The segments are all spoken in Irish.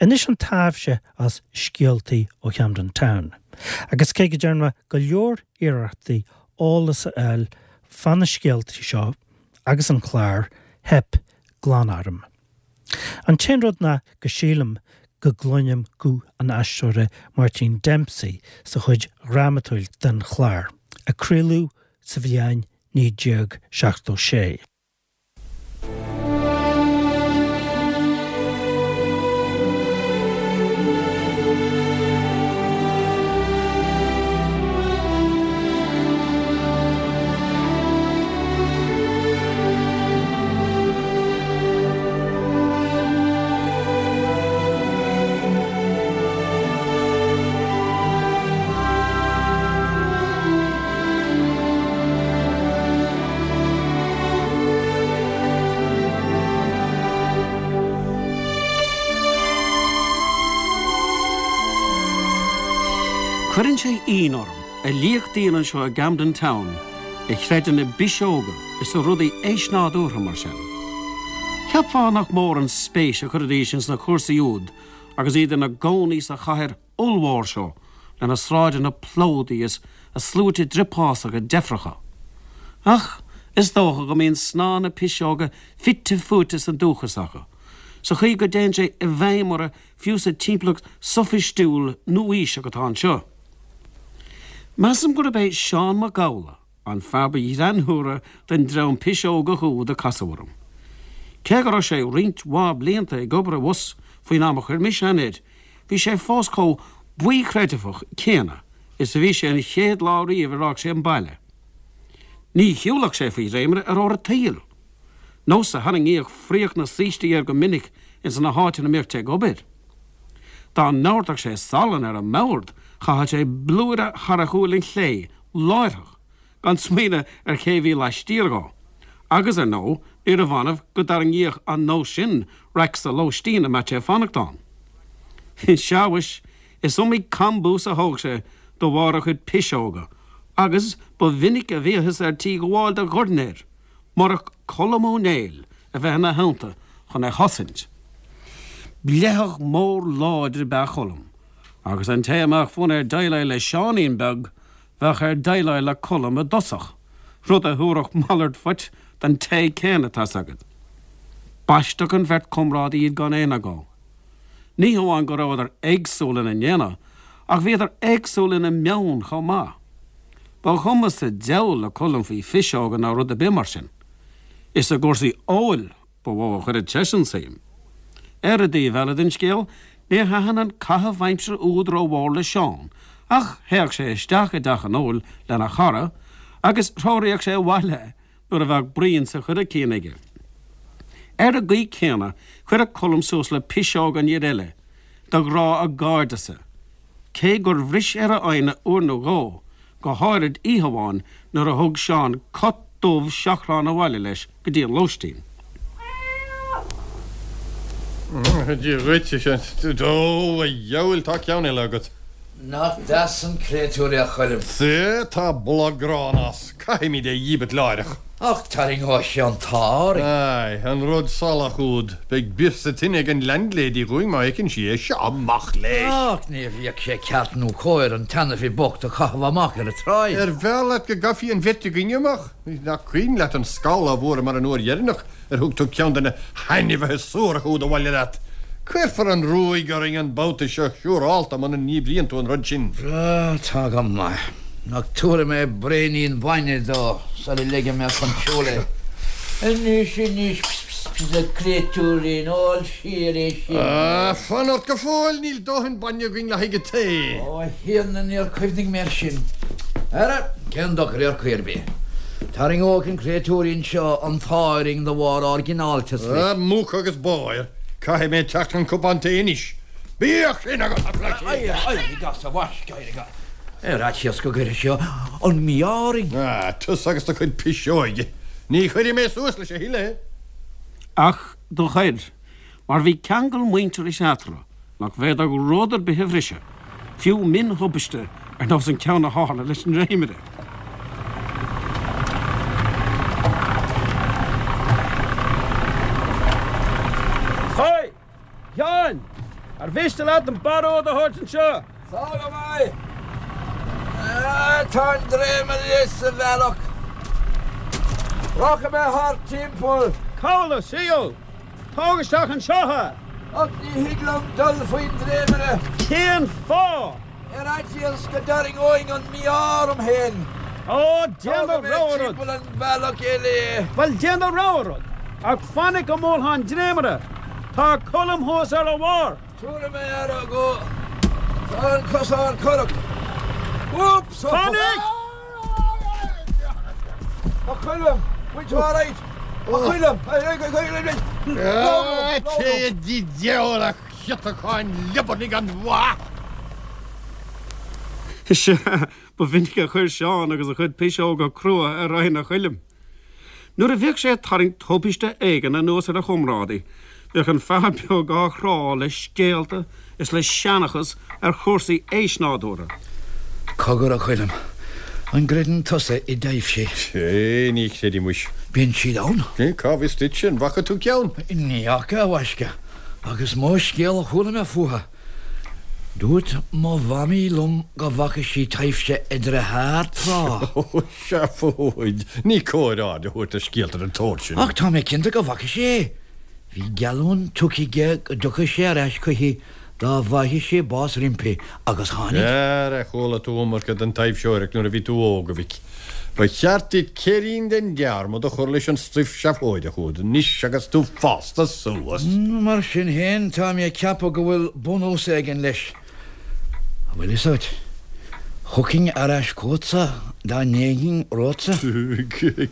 Anois an taibhse as Scéaltaí ó Chamden Town. Agus cé go dtearn mé go leor iarrachtaí eolas a fháil fá na scéaltaí seo agus an clár, theip glan orm. An t-aon rud ná go sílim go gcluinim guth an aisteora Máirtín Dempsey sa chuid dhrámatúil den chlár, a craoladh sa bhliain 1976. Cuireann sé ionadh orm a liacht daoine anseo i gCamden Town a chreideann i bpiseoga is i rudaí eisnádúrtha mar sin. Cheapfá nach mór an spéis a chuirfidís ins na cúrsaí úd agus iad ina gcónaí sa chathair ollmhór seo lena sráideanna plódaithe is a sluaite driopásacha deifreacha. Ach is dócha go mbíonn snáth na piseoga fite fuaite sa dúchas acu, sa chaoi go dtéann sé i bhfeidhm orthu fiú sa timpeallacht soifistiúil nua-aoiseach atá anseo. Measaim gurb é Seán Mac Gabhla an fear ba ghreannmhaire den dream piseogach úd a casadh orm. Cé go raibh sé roinnt mhaith blianta ag obair abhus faoin am a chuir mise aithne air, bhí sé fós chomh baothchreidmheach céanna is a bhí sé an chéad lá riamh ar fhág sé an baile. Ní shiúlfadh sé faoi dhréimire ar uair an tsaoil. Nós a tharraingíodh fraoch na saoistí air go minic ins na háiteanna a mbíodh sé ag obair. Dá ndóirteadh sé salann ar an mbord, chaitheadh sé blúire thar a shúil chlé láithreach, gan smaoineamh ar ché bhí laistiar dhó. Agus, ar ndóigh, níorbh annamh go dtarraingíodh an nós sin raic sa lóistín a mbeadh sé ag fanacht ann. Sea, mhuis, is iomaí cambús a thóg sé de bharr a chuid piseoga, agus ba mhinic a bhíothas ar tí gabháil de dhorn air, murach Colm Ó Néill a bheith ina theannta chun é a chosaint. Bleitheach mór láidir ab ea Colm, agus an té a mbeadh fonn air déileáil le Seáinín beag, bheadh air déileáil le Colm i dtosach, rud a thabharfadh malairt phoit don té céanna, tá's agat. B'aisteach an bheirt chomrádaí iad gan aon agó. Ní hamháin go rabhadar éagsúil ina ndéanamh, ach bhíodar éagsúil ina meon chomh maith. Ba chuma sa diabhal le Colm faoi phiseoga ná rud ar bith mar sin. Is i gcúrsaí óil ba mhó a chuireadh seisean suim. Ar an dtaobh eile den scéal, níor thaitin an caitheamh aimsire úd rómhór le Seán, ach théadh sé isteach i dteach an óil lena chara agus threoraíodh sé abhaile é nuair a bheadh braon sa choiricín aige. Ar an gcaoi chéanna, chuireadh Colm suas le piseoga an fhir eile, de ghrá a gcairdeasa, cé gur bhris ar a fhoighne uair nó dhó, go háirid oíche amháin nuair a thug Seán cat dubh seachrán abhaile leis go dtí an lóistín. Dia dhuit, a Sheáin. Ó, a dheabhail, tá ceann eile agat. Nach deas an créatúr é a Choilm. Sea, tá boladh gránna as. Caithfimid é dhíbirt láithreach. Ach tarraingeoidh sé an t-ádh orainn. Aye, an rud salach úd. Beidh bior sa tine ag an landlady dhúinn má fheiceann sí é. Seo amach leis! Ach ní bheadh sé ceart nó cóir an t-ainmhí bocht a chaitheamh amach ar an tsráid. Ar bhfearr leat go gcaithfí an bheirt againne amach? Nach cuimhin leat an scamall a bhfuaireamar an uair dheireanach ar thug tú ceann de na hainmhithe suaracha úd abhaile leat? Cuirfear an ruaig orainn an babhta seo siúrálta muna ndíbríonn tú an rud sin. Tá go maith. Ach tabharfaidh mé braoinín bainne dó sula leigfidh mé chun siúil é. Anois, anois, ps, ps, ps, a chréatúirín, ól siar é sin. Ah, fan ort go fóill, níl dóthain bainne againn le haghaidh an tae. Ó, a Thiarna, níor chuimhnigh mé air sin. Ara, cén dochar ar chaoi ar bith. Tarraingeoidh an créatúirín seo an t-ádh orainn de bharr ár gcineáltas leis. Ah, muc agus báir. Caithfidh mé teacht chun cupán tae anois. Bíodh sin agat, a phleidhce! Éirigh, éirigh as, a mhaisc, éirigh as. Ar fhaitíos go gcuirfidh sé an mí-ádh orainn. Ah, tusa agus do chuid piseoige. Ní chuirfidh mé suas leis a thuilleadh. Ach do chuir, mar bhí ceangal muintearais eatarthu nach bhféadfadh rud ar bith a bhriseadh, fiú mion-thubaiste ar nós an ceann a tharla leis an ndréimire. Haigh! Sheáin! Ar mhiste leat an barróg a thabhairt anseo? Tá go maith. Tá an dréimire sa bhealach. Rachaidh mé thart timpeall. Cá bhfuil tú? Tóg isteach anseo é! Ach ní thig liom dul faoin dréimire. Cén fáth? Ar fhaitíos go dtarraingeoinn an mí-ádh orm féin. Ó, déan do Tógfaidh mé rogha rud. timpeall an bhealach eile é. Bhuel, déan do rogha rud, ach fainic go mbuailfeá an dréimire. Tá Colm thuas ar a bharr. Tabharfaidh mé aire dhó. Tá an cosán corrach. Úps! Fainic! A Choilm! Bhfuil tú alright? A Choilm! Téigh i dtigh diabhail a chiotacháin liobarnaigh gan mhaith! Sea, ba mhinic a chuir Seán agus a chuid piseoga crua ar fhoighne Choilm. Nuair a bhíodh sé ag tarraingt tubaiste éigin anuas ar a chomrádaí, bhíodh an fear beag á chrá le scéalta is le seanchas ar chúrsaí eisnádúrtha. Cogar, a Choilm, an gcreideann tusa i dtaibhsí? Sea, ní chreidim muis. Bíonn siad ann? Cá bhfios duitse, an bhfaca tú ceann? Ní fhaca, a mhaisce, ach is mó scéal a chuala mé fúthu. Dúirt mo mhamaí liom go bhfaca sí taibhse a dearthár tráth. Ó, seafóid! Ní cóir aird a thabhairt ar scéalta den tsórt sin. Ach tá mé cinnte go bhfaca sé é. Bhí geallúint tugtha aige go dtiocfadh sé ar ais chuici dá bhfaigheadh sé bás roimpi, agus tháinig. Ara, chuala tú iomarca den taibhseoireacht nuair a bhí tú óg, a mhic. Ba cheart duit céirín den dearmad a chur leis an stuif seafóideach úd anois agus tú fásta suas. Mar sin féin, tá mé ag ceapadh go bhfuil bunús éigin leis. An bhfuil fhios agat, thiocfainn ar ais chugatsa dá ndéanfainn romhatsa.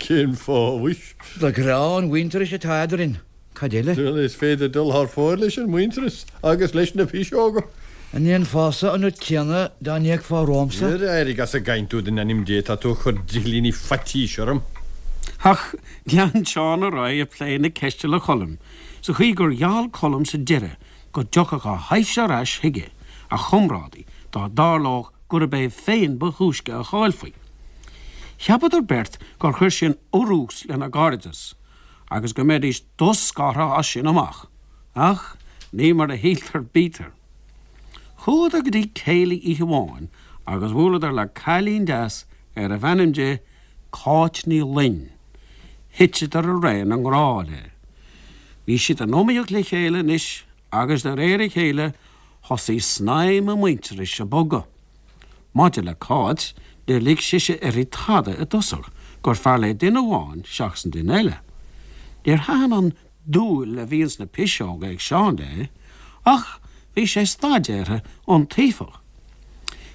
Cén fáth, mhuis? De ghrá an mhuintearais atá eadrainn. Cad eile? Bhuel, is féidir dul thar fóir leis an muintearas agus leis na piseoga. An ndéanfása an rud céanna dá n-éagfá romhamsa? Ar éirigh as an gcaint úd in ainm Dé, tá tú ag cur drithlíní faitís orm. Ach lean Seán ar aghaidh ag plé na ceiste le Colm, sa chaoi gur gheall Colm sa deireadh go dtiocfadh a thaibhse ar ais chuige, a chomrádaí, dá dtarlódh gurb é féin ba thúisce a chaillfí. Cheapadar beirt gur chuir sin urrús lena gcairdeas. agus go mbeidís doscartha as sin amach, ach ní mar a shíltear bítear. Chuadar go dtí céilí oíche amháin agus bhuaileadar le cailín deas arbh ainm di Cáit Ní Fhloinn. Thiteadar araon i ngrá léi. Bhí siad in iomaíocht le chéile anois agus de réir a chéile thosaigh snaidhm a muintearais ag bogadh. Maidir le Cáit, níor lig sise uirthi tada i dtosach, gur fearr léi duine amháin seachas an duine eile. Níor thaitin an dúil a bhí ins na piseoga ag Seán léi, ach bhí sé staidéartha iontaofach.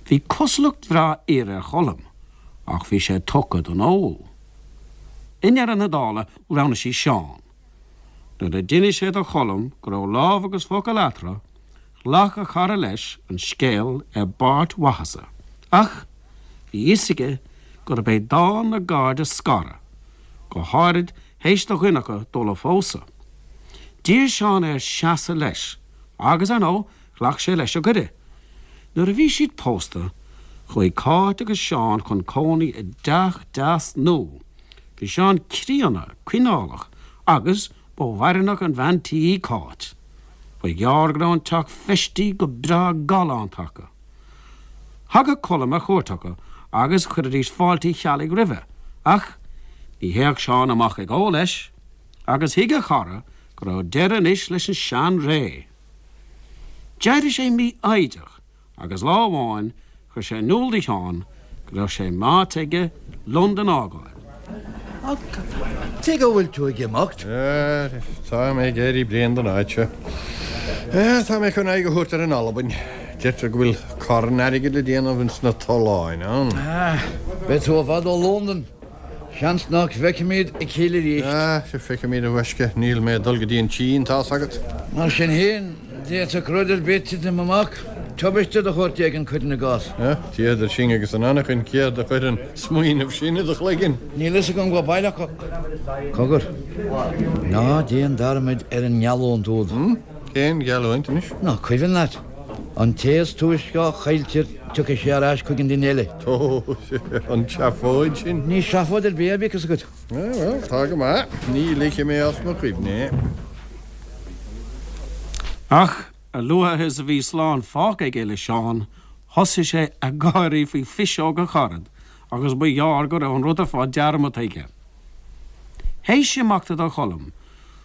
Bhí cosúlacht bhreá fhir ar Cholm, ach bhí sé tugtha don ól. I ndeireadh na dála, roghnaigh sí Seán. Nuair a d'inis sé do Cholm go raibh lámh agus focal eatarthu, ghlac a chara leis an scéal i bpáirt mhaitheasa, ach bhí fhios aige gurb é dán na gcairde scaradh, go háirid théis do dhuine acu dul a phósadh. D'iarr Seán air seasamh leis, agus, ar ndóigh, ghlac sé leis an gcuireadh. Nuair a bhí siad pósta, chuaigh Cáit agus Seán chun cónaí i dteach deas nua. Bhí Seán críonna, coinneálach, agus ba bhaireannach an bhean tí í Cáit. Ba ghearr go raibh an teach feistithe go breá galánta acu. Thagadh Colm ar chuairt acu agus chuiridís fáilte Cheallaigh roimhe, ach ní théadh Seán amach ag ól leis, agus thuig a chara go raibh deireadh anois leis an sean-ré. D'éirigh sé mífhoighdeach agus lá amháin chuir sé in iúl do Sheán go raibh sé meáite aige Londain a fhágáil. Tuige a bhfuil tú ag imeacht? Tá mé ag éirí bréan den áit seo. Tá mé chun aghaidh a thabhairt ar an Albain. Deirtear go bhfuil carn airgid le déanamh ins na tolláin ann. Beidh tú i bhfad ó Londain. Seans nach bhfeicfimid a chéile arís. Ah, sea, feicfimid, a ghaisce. Níl mé ag dul go dtí an tSín, tá's agat. Mar sin féin, d'fhéadfadh rud ar bith titim amach, tubaiste de shórt éigin, cuirim i gcás. Ah, Dia idir sinn agus an anachain, céard a chuir an smaoineamh sin i do chloigeann? Níl fhios agam go baileach ach. Cogar, ná déan dearmad ar an ngeallúint úd. Hm? Cén gheallúint anois? Nach cuimhin leat? An té is túisce a chailltear tiocfaidh sé ar ais chuig an duine eile. Ó, an tseafóid sin. Ní seafóid ar bith é, bíodh fhios agat. Bhuel, tá go maith. Ní ligfidh mé as mo chuimhne é. Ach. A luaithe is a bhí slán fágtha aige le Seán, thosaigh sé ag gáirí faoi phiseog a charad agus ba ghearr go raibh an rud ar fad dearmadta aige. Théis imeachta do Cholm,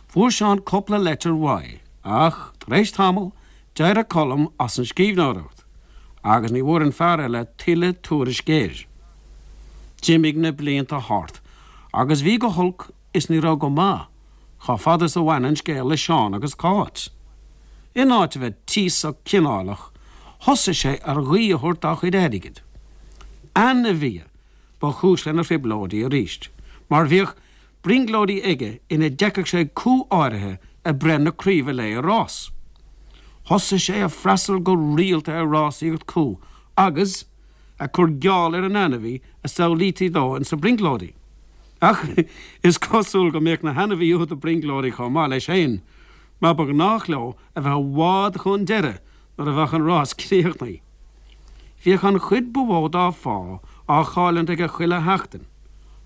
fuair Seán cupla leitir uaidh ach, tar éis tamaill, d'éirigh Colm as an scríbhneoireacht agus ní bhfuair an fear eile tuilleadh tuairisc air. D'imigh na blianta thart agus bhí go holc is ní raibh go maith chomh fada is a bhain an scéal le Seán agus Cáit. In áit a bheith tíosach cineálach, thosaigh sé ar ghuí a thabhairt dá chuid airgid. Ainmhithe ba chúis lena thrioblóidí arís, mar bhíodh brionglóidí aige ina bhfeiceadh sé cú áirithe ag breith na craoibhe léi i rás. Thosaigh sé ag freastal go rialta ar rásaíocht chú agus ag cur geall ar an ainmhí a samhlaítí dó ins na brionglóidí. Ach is cosúil go mbíodh na hainmhithe úd ag brionglóidí chomh maith leis féin, mar ba ghnách leo a bheith i bhfad chun deiridh nuair a bheadh an rás críochnaithe. Bhíodh an chuid ba mhó dá phá á chailliúint aige chuile sheachtain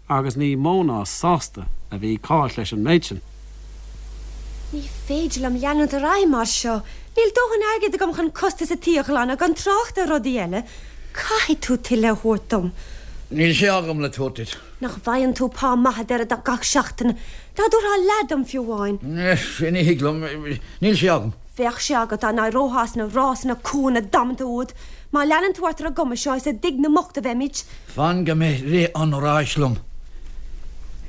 agus ní mó ná sásta a bhí Cáit leis an méid sin. Ní féidir liom leanúint ar aghaidh mar seo. Níl dóthain airgid agam chun costas an tí a ghlanadh, gan trácht ar rudaí eile. Caithfidh tú tuilleadh a thabhairt dom. Níl sé agam le tabhairt duit. Nach bhfaigheann tú pá maith a deireadh gach seachtain? Dá dtabharfá leath dom fiú amháin. Ní thig liom. Níl sé agam. Bheadh sé agat dá n-éireofá as na rásanna cúnna damanta úd. Má leanann tú ort ar an gcuma seo, is i dtigh na mbocht a bheimid. Fan go mbeidh rith an ráis liom.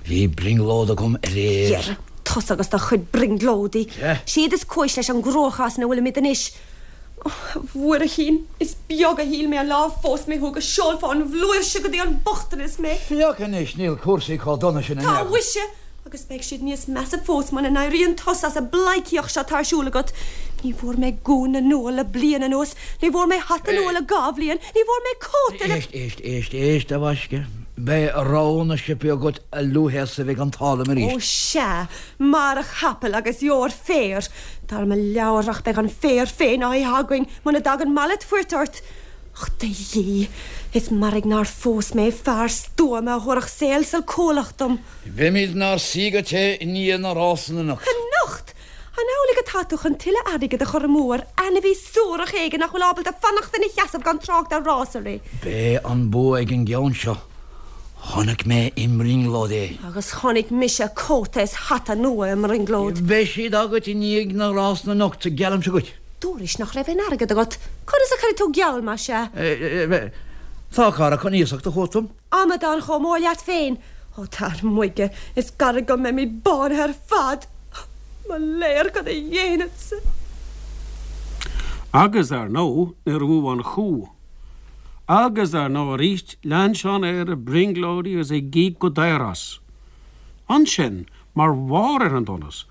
Bhí brionglóid agam aréir. Dhera, tusa agus do chuid brionglóidí. Siad is cúis leis an gcruachás ina bhfuilimid anois. Ó, a Mhuirchín, is beag a shíl mé an lá a phós mé thú go seolfá an bhflúirse go dtí an bochtanas mé. Féach anois, níl cúrsaí chomh dona sin in Tá aon chor. mhuise! Agus beidh siad níos measa fós muna n-éiríonn tusa as an bpleidhcíocht seo atá ar siúl agat. Ní bhfuair mé gúna nua le bliain anuas, ní bhfuair mé hata nua le dha bhliain, ní bhfuair mé cóta le. Éist, éist, éist, éist, a mhaisce. Beidh rogha na siopaí agat a luaithe is a bheidh an t-ádh liom arís. Ó sea, mair a chapaill agus gheobhair féar. Dar mo leabhar ach beidh an féar féin á ithe againn muna dtagann malairt phoirt ort. Och, a Dhia, is mairg nár phós mé fear stuama a thabharfadh saol salcúlach dom. Beimid inár suí go te i ndiaidh na rásanna anocht. Anocht! An amhlaidh atá tú chun tuilleadh airgid a chur amú ar ainmhí suarach éigin nach bhfuil ábalta fanacht ina sheasamh gan trácht ar rás a rith? Beidh an bua ag an gceann seo. Chonaic mé i mbrionglóid é. Agus chonaic mise cóta is hata nua i mbrionglóid. Beidh siad agat i ndiaidh na rásanna anocht, geallaimse dhuit. Dúrais nach raibh aon airgead agat. Conas a chuirfidh tú geall, más ea? Tá cara chun iasacht a thabhairt dom. Amadán chomh mór leat féin! Ó, tar 'muige, is gairid go mbeimid bánaithe ar fad! Mo léir, cad a dhéanfadsa? Agus, ar ndóigh, níor bhuaigh an chú. Agus, ar ndóigh arís, lean Seán air ag brionglóidí agus ag íoc go daor as. Ansin, mar bharr ar an donas,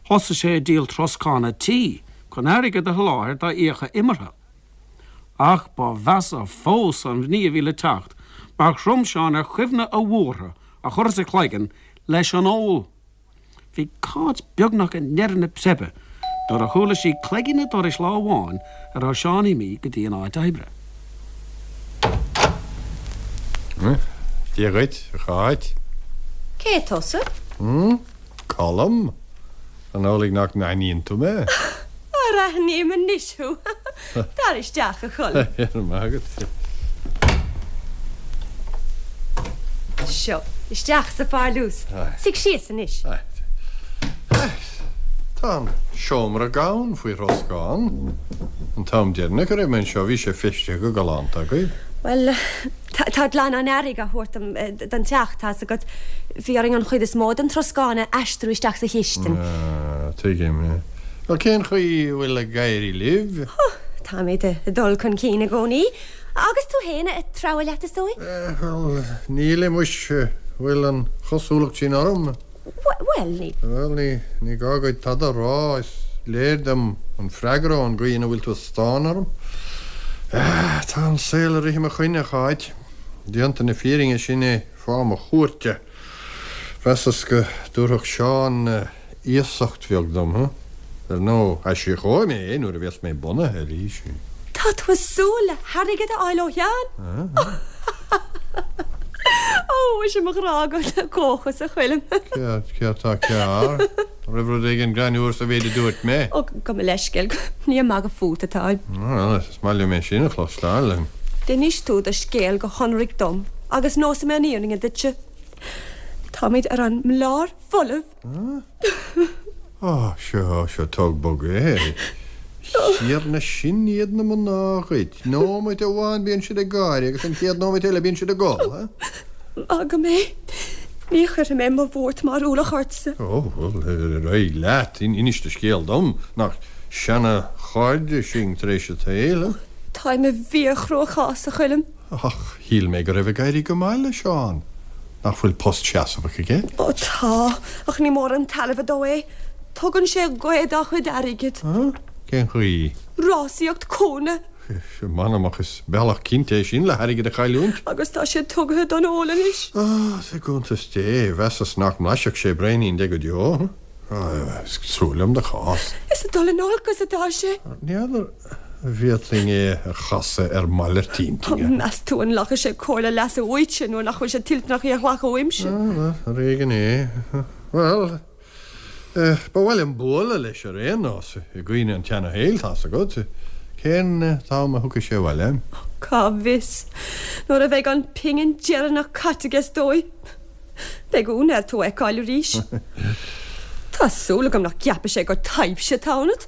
thosaigh sé ag díol troscán a' tí chun airgead a sholáthar dá fhiacha imeartha. Ach ba mheasa fós an ní a bhí le teacht, mar chrom Seán ar chuimhne a bhuartha a chur as a chloigeann leis an ól. Bhí Cáit beagnach i ndeireadh na preibe nuair a chuala sí cloigín an dorais lá amháin a raibh Seán imithe go dtí an áit oibre. Dia dhuit, a Cháit. Cé tusa? Colm? An amhlaidh nach n-aithníonn tú mé? Ara aithním anois thú. Tar isteach, a Choilm. Go raibh maith agat. Seo, isteach sa pharlús. Suigh síos anois. Tá an seomra gann faoi throscán. An t-am deireanach a raibh mé anseo bhí sé feistithe go galánta agaibh. Bhuel, Tá glanán earraigh á thabhairt dom don teach, tá's agat. Bhí orainn an chuid is mó den troscán a aistriú isteach sa chistin. Ah, tuigim. Bhuel, cén chaoi a bhfuil ag éirí libh? Oh, táimid ag dul chun cinn i gcónaí. Agus tú féin, ag treabhadh leat, is dóigh? Bhuel, nílim, muis. Bhfuil an chosúlacht sin orm? Bhuel, ní. Bhuel, ní, ní gá duit tada a rá, is léir dom an freagra ón gcaoi ina bhfuil tú ag stánadh orm. Tá an saol ag rith i mo choinne, a Cháit. Déanta na fírinne, sin é fáth mo chuairte. Mheasas go dtabharfadh Seán iasacht bheag dom, huh? Ar ndóigh, aisíocóidh mé é nuair a bheas mé bunaithe arís. Tá tú ag súil le hairgead a fháil ó Sheán? Ó, muise mo ghrá gan dóchas, a Choilm. Céard, céard tá cearr? An raibh rud éigin greannmhar sa mhéid a dúirt mé? Ó, gabh mo leithscéal, ní ag magadh fút atáim. Bhuel, is maith liom é sin a chloisteáil. D'inis tú do scéal go hionraic dom agus neosfaidh mé an fhírinne duitse. Táimid ar an mblár folamh. Á, seo, seo, tóg bog é. A Thiarna, sin iad na mná dhuit. Nóiméad amháin bíonn siad ag gáire agus an chéad nóiméad eile bíonn siad ag gol, ha? Maith agam é. Ní chuirfidh mé mo bhuairt mar ualach ortsa. Ó, bhuel, ar aghaidh leat. Inis do scéal dom. Nach seana-chairde sinn tar éis an tsaoil, ha? Táim i bhfíor-chruachás, a Choilm. Ach shíl mé go raibh ag éirí go maith le Seán. Nach bhfuil post seasmhach aige? Ó tá, ach ní mór an tairbhe dó é. Tugann sé gaoth dá chuid airgid. Cén chaoi? Rásaíocht cúnna. M'anam ach is bealach cinnte é sin le hairgead a chailliúint. Agus tá sé tugtha don ól anois. Á, i gcuntas Dé, mheasas nach mblaisfeadh sé braoinín de go deo. Is trua liom do chás. Is ag dul in olcas atá sé. N'fheadar an bhféadfainn é a chasadh ar malairt intinne. Meas tú an nglacfaidh sé comhairle leasa uaitse nuair nach bhfuil sé toilteanach í a ghlacadh uaimse? Ar éigean é. Bhuel, ba mhaith liom bualadh leis ar aon nós, i gcuimhne an tseana-shaoil, tá's agat. Cén t-am a thiocfaidh sé abhaile? Cá bhfios. Nuair a bheidh an phingin deireanach caite aige is dóigh. Beidh ionadh air tú a fheiceáil arís. Tá súil agam nach gceapfaidh sé gur taibhse atá ionat.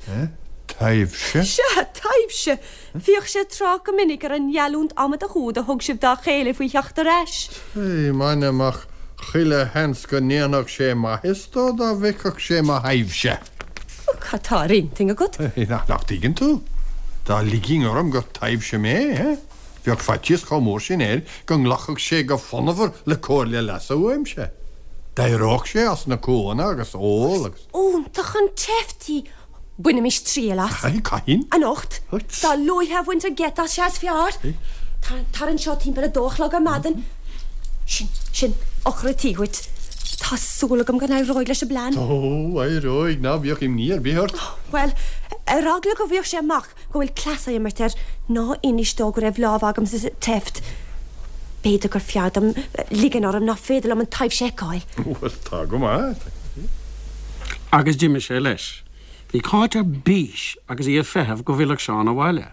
Taibhse? Sea, taibhse! Bhíodh sé ag trácht go minic ar an ngeallúint amadach úd a thug sibh dá chéile faoi theacht ar ais. Sea, m'anam ach chuile sheans go ndéanfadh sé maitheas dó dá bhfeicfeadh sé mo thaibhse. Cad tá ar intinn agat? Nach dtuigeann tú? Dá ligfinn orm gur taibhse mé, eh? Bheadh faitíos chomh mór sin air go nglacfadh sé go fonnmhar le comhairle leasa uaimse. D'éireodh sé as na cúanna agus ól agus. Iontach an tseift í! Bainimis triail as. Cathain? Anocht. Dá luaithe a bhaintear geit as, sea is fearr. Tar anseo timpeall a dó a chlog ar maidin. Sin, sin, eochair an tí dhuit. Tá súil agam go n-éireoidh leis an bplean. Ó, éireoidh, ná bíodh imní ar bith ort. Bhuel, ar eagla go bhfaigheadh sé amach go bhfuil cleas á imirt air, ná inis dó go raibh lámh agamsa sa tseift. B'fhéidir gur fearr dom ligean orm nach féidir liom an taibhse a fheiceáil. Bhuel, tá go maith. Agus d'imigh sé leis. Bhí Cáit ar bís agus í ag feitheamh go bhfillfeadh Seán abhaile.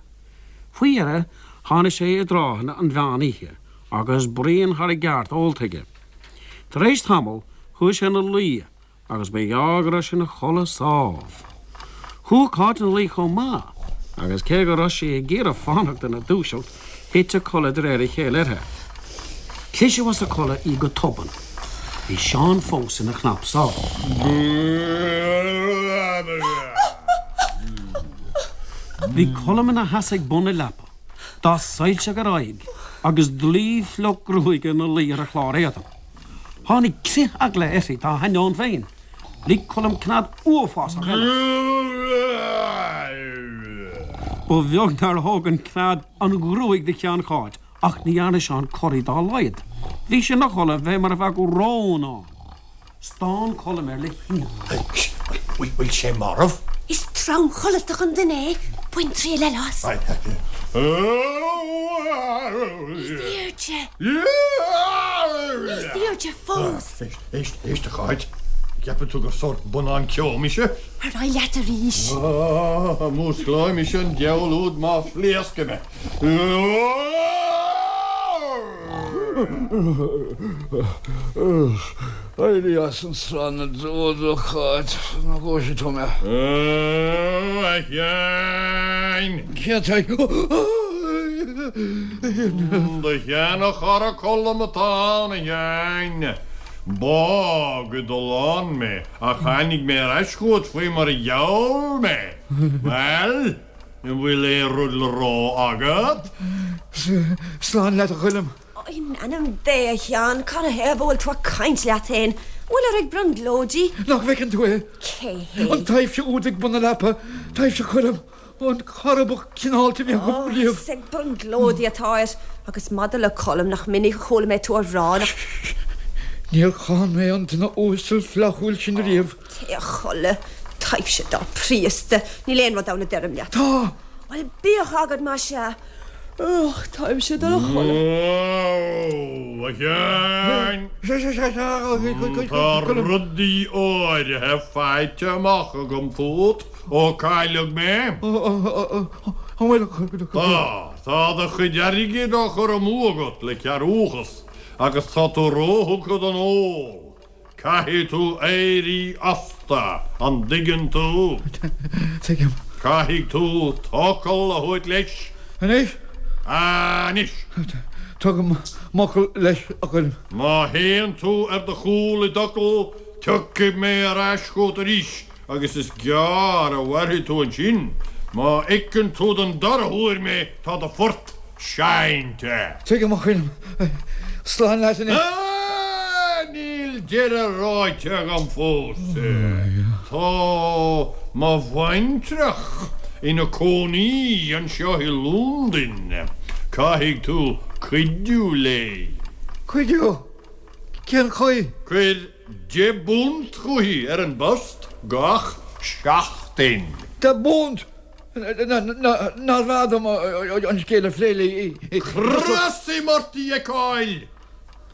Faoi dheireadh tháinig sé i dtráthanna an mheán oíche agus braon thar a gceart ólta aige. Tar éis tamaill chuaigh sé ina luí agus ba ghearr go raibh sé ina chodladh sámh. Chuaigh Cáit ina luí chomh maith, agus cé go raibh sí ag iarraidh fanacht ina dúiseacht, thit a codladh de réir a chéile uirthi. Cliseadh as a codladh í go tobann. Bhí Seán fós ina chnapsá. Bhí Colm ina sheasamh ag bun na leapa, dath soilseach ar a aghaidh agus dlaoi fliuch gruaige ina luí ar a chlár éadain. Tháinig crith eagla uirthi dá hainneoin féin. Lig Colm cnead uafásach eile. Ba bheag nár thóg an cnead an ghruaig de cheann Cháit, ach ní dhearna Seán corraí dá laghad. Bhí sé ina chodladh fé mar a bheadh rón ann. Stán Colm air le hionadh. Bhfuil sé marbh? Is tromchodlatach an duine é. Bain triail eile as. Níos airde. Níos airde fós. Éist, éist, éist, a Cháit. An gceapann tú gur sórt bonnán ceo mise? Ar aghaidh leat arís. Músclóidh mise an diabhal úd má phléascaim é. Éirigh as an sraith na dtreo, a Cháit, nó gosfaidh tú mé. Ó, a Sheáin! Cé atá ag. Do sheana-chara Colm atá ann, a Sheáin. Bádh i dtollán mé, ach tháinig mé ar ais chugat faoi mar a gheall mé. Bhuel? An bhfuil aon rud le rá agat? Slán leat, a Choilm. In ainm Dé, a Sheáin, canathaobh a bhfuil tú ag caint leat féin? An bhfuilir ag brionglóidí? Nach bhfeiceann tú é? Cé hé? An taibhse úd ag bun na leapa. Taibhse Choilm. An cara ba chineálta a bhí agam riamh. Is ag brionglóidí atáir. Agus maidir le Colm, nach minic a chuala mé tú á rá nach. Níor cháin mé an duine uasal flaithiúil sin riamh. Téigh a chodladh, taibhse dá príosta. Níl aon rud ann a deirim leat. Tá! Bhuel, bíodh agat más ea. Och, táimse dul a chodladh. Ó, a Sheáin! Tá rudaí áirithe faighte amach agam fút ó cailleadh mé. An bhfuil? Tá. Tá do chuid airgid á chur amú agat le cearrbhachas agus tá tú róthugtha don ól. Caithfidh tú éirí astu, an dtuigeann tú? Tuigim. Caithfidh tú t'fhocal a thabhairt leis. Anois? Anois! Tugaim m'fhocal leis, a Choilm. Má théann tú ar do chúl i d'fhocal, tiocfaidh mé ar ais chugat arís agus is gearr a mhairfidh tú ansin. Má fheiceann tú den dara huair mé, tá do phort seinnte. Tuigim, a Choilm. Slán leat anois. Ah! Níl deireadh ráite agam fós. Tá mo bhaintreach ina cónaí anseo i Londain. Caithfidh tú cuidiú léi. Cuidiú? Cén chaoi? Cuir £10 chuici ar an bpost gach seachtain. £10? Nárbh fhearr dom an scéal a phlé léi? Crosaim ort í a fheiceáil!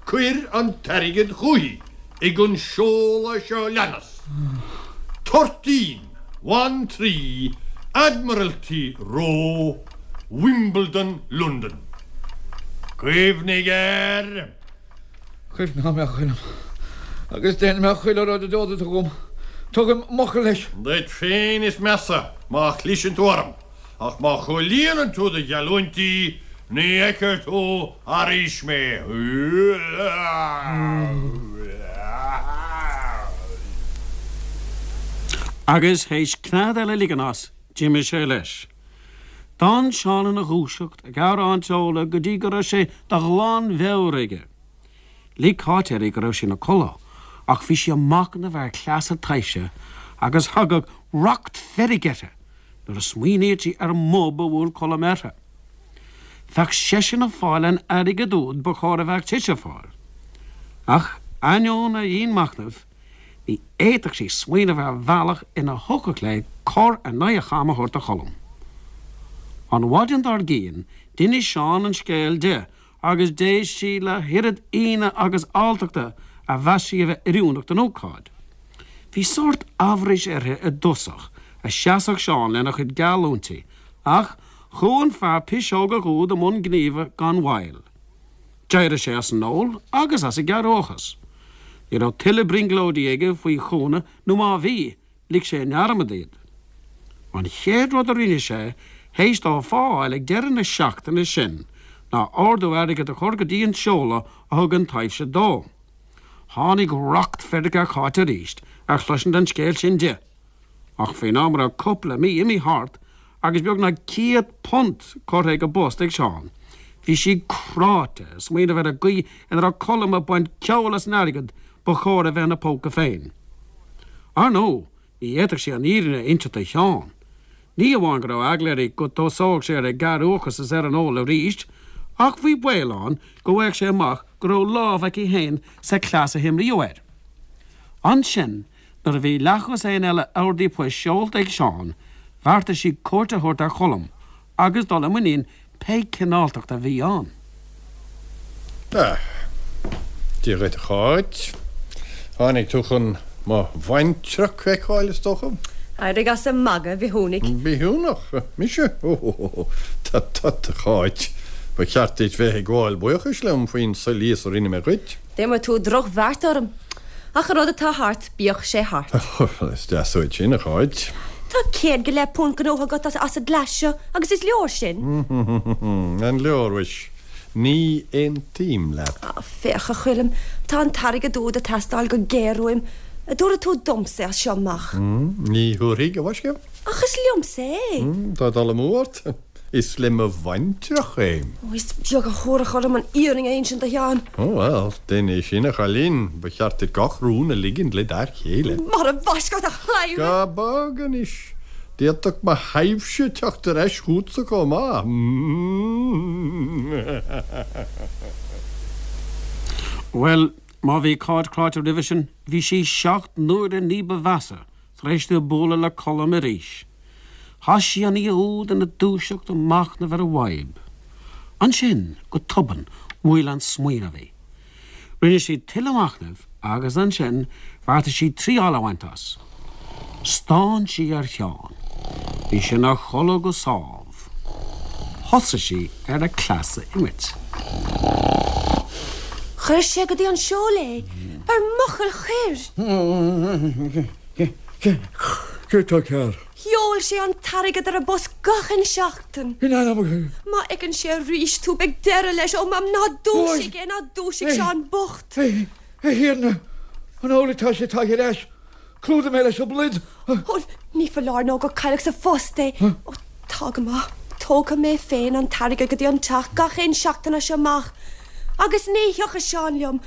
Cuir an t-airgead chuici ag an seoladh seo leanas, Toirtín, 1 3 Admiralty Row, Wimbledon, Londain. Cuimhnigh air! Cuimhneoidh mé, a Choilm, agus déanfaidh mé chuile rud a d'ordaigh tú dhom. Tugaim m'fhocal leis. Duit féin is measa má chliseann tú orm, ach má chomhlíonann tú do gheallúintí, ní fheicfidh tú arís mé. Agus théis cnead eile a ligean as, d'imigh sé leis. D'fhan Seán ina dhúiseacht ag amhrán ceola go dtí go raibh sé de ghlanmheabhair aige. Lig Cáit uirthi go raibh sé ina codladh ach bhí sí ag machnamh ar chleas a taibhse agus thagadh racht feirge uirthi nuair a smaoiníodh sí ar an mbob a bhuail Colm uirthi. Bheadh seisean ag fáil an airgid úd ba chóir a bheadh sise ag fáil. Ach ainneoin a dhianmhachnaimh, Ní fhéadfadh sí smaoineamh ar bhealach ina thiocfadh léi cor in aghaidh a cham a thabhairt do Cholm. An mhaidin dár gcionn, d'inis Seán an scéal di agus d'éist sí le hoiread ionadh agus alltachta a mheas sí a bheith oiriúnach don ócáid. Bhí sórt amhrais uirthi i dtosach a seasfadh Seán lena chuid geallúintí ach chuaigh an fear piseogach úd i mbun gníomha gan mhoill. D'éirigh sé as an ól agus as an gcearrbhachas. Ní raibh tuilleadh brionglóidí aige faoi chúnamh nó má bhí, lig sé i ndearmad iad. An chéad rud a rinne sé théis dó a phá a fháil ag deireadh na seachtaine sin ná ordú airgid a chur go dtí an seoladh a thug an taibhse dó. Tháinig racht feirge ar Cháit arís ar chloisint an scéil sin di. Ach faoin am a raibh cúpla mí imithe thart agus beagnach £100 curtha ag an bpost ag Seán, bhí sí cráite ag smaoineamh ar an gcaoi ina raibh Colm ag baint ceoil as an airgead ba chóir a bheith ina póca féin. Ar ndóigh, ní fhéadfadh sí an fhírinne a inseacht do Sheán. Ní amháin go raibh eagla uirthi go dtosódh sé ar an gcearrbhachas is ar an ól arís, ach bhí baol ann go bhfaigheadh sé amach go raibh lámh aici féin sa chleas a himríodh air. Ansin, Nuair a bhí leathdhosaen eile ordaí poist seolta ag Seán, bheartaigh sí cuairt a thabhairt ar Cholm agus dul i muinín pé cineáltacht a bhí ann. Ah, Dia dhuit, a Cháit. Tháinig tú chun mo bhaintreach a fheiceáil, is dócha? Éirigh as an magadh, a bhithiúnaigh. Bithiúnach? Mise? Ó, tut tut, a Cháit. Ba cheart duit bheith ag gabháil buíochais liom faoin soilíos a rinne mé dhuit. D'imir tú drochbheart orm. Ach an rud atá thart, bíodh sé thart. Is deas uait sin, a Cháit. Tá £150 gnóthaithe agat as an gcleas seo agus is leor sin. An leor, mhuis? Ní aontaím leat. Féach, a Choilm, tá an t-airgead úd ag teastáil go géar uaim. An dtabharfaidh tú domsa é as seo amach? Ní thabharfaidh, a mhaisce. Ach is liomsa é. Tá dul amú ort. Is le mo bhaintreach é. Ó, is beag a thabharfadh orm an fhírinne a insint do Sheán. Ó, bhuel, déan é sin, a chailín. Ba cheart duit gach rún a ligint le d'fhear céile. Mara bhfaisc ort, a chladhaire! Gabh bog anois. D'fhéadfadh mo thaibhse teacht ar ais chugatsa chomh maith. Bhuel, má bhí Cáit cráite roimhe sin, bhí sí seacht n-uaire ní ba mheasa tar éis di bualadh le Colm arís. Chaith sí an oíche úd ina dúiseacht ag machnamh ar an bhfadhb. Ansin, go tobann, bhuail an smaoineamh í. Rinne sí tuilleadh machnaimh agus ansin bheartaigh sí triáil a bhaint as. Stán sí ar Sheán. Bhí sé ina chodladh go sámh. Thosaigh sí ar a cleas a imirt. Chuir sé go dtí an seol é ar m'fhocal chuir. Céard tá cearr? Sheol sé an t-airgead ar an bpost gach aon seachtain. In ainm. Má fheiceann sé arís tú, beidh deireadh leis. Ó, Mam, ná dúisigh é, ná dúisigh Seán bocht. A Thiarna, an amhlaidh atá sé tagtha ar ais? Clúdaigh mé leis an bpluid. Ó, ní foláir nó gur cailleadh sa phost é. Ó, tá go maith. Tógfaidh mé féin an t-airgead go dtí an teach gach aon seachtain as seo amach. Agus ní thiocfaidh Seán liom,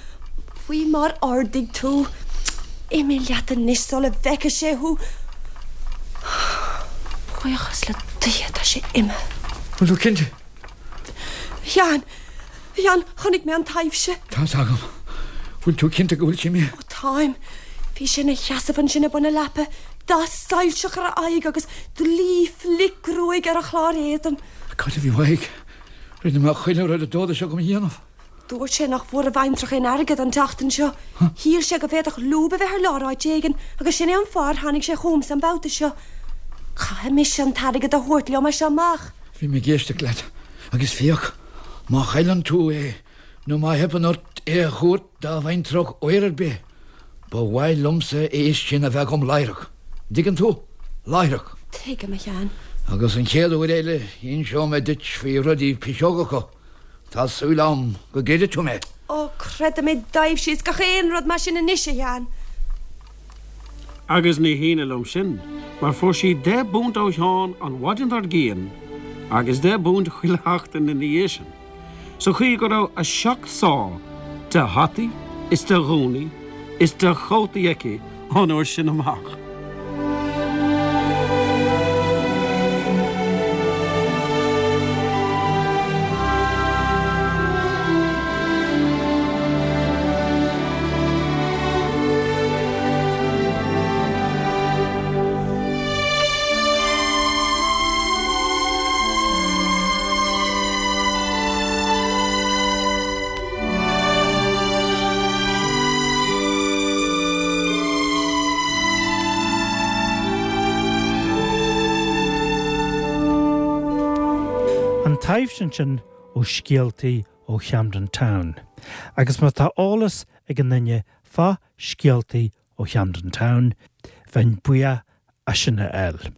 faoi mar ordaigh tú. Imigh leat anois sula bhfeice sé thú. Buíochas le Dia, tá sé imithe. Bhfuil tú cinnte? A Sheáin, a Sheáin, chonaic mé an taibhse. Tá's agam. Bhfuil tú cinnte go bhfuil sé imithe? Ó, táim. Bhí sé ina sheasamh ansin ag bun na leapa, dath soilseach ar a aghaidh agus dlaoi fhliuchghruaig ar a chlár éadain. Cad a bhí uaidh? Rinne mé chuile rud a d'ordaigh sé dhom a dhéanamh. Dúirt sé nach bhfuair a bhaintreach aon airgead an tseachtain seo. Shíl sé go bhféadfadh lúb a bheith ar lár áit éigin agus sin é an fáth ar tháinig sé chugamsa an babhta seo. Caithfidh mise an t-airgead a thabhairt liom as seo amach. Bhí mé ag éisteacht leat agus féach, má chailleann tú é nó má theipeann ort é a thabhairt dá bhaintreach uair ar bith, ba mhaith liomsa a fhios sin a bheith agam láithreach. An dtuigeann tú? Láithreach. Tuigim, a Sheáin. Agus an chéad uair eile inseoidh mé duit faoi rudaí piseogacha. Tá súil agam go gcreidfidh tú mé. Ó, creidim i dtaibhsí is gach aon rud mar sin anois, a Sheáin. Agus ní hionadh liom sin, mar fuair sí deich bpunt ó Sheán an mhaidin dár gcionn agus deich bpunt chuile sheachtain ina dhiaidh sin. sa chaoi go raibh a seacht sá de hataí is de ghúnaí is de chótaí aici ón uair sin amach. An taibhse ansin ó Scéaltaí ó Chamden Town. Agus má tá eolas ag aon duine fá Scéaltaí ó Chamden Town, bheinn buíoch as sin a fháil.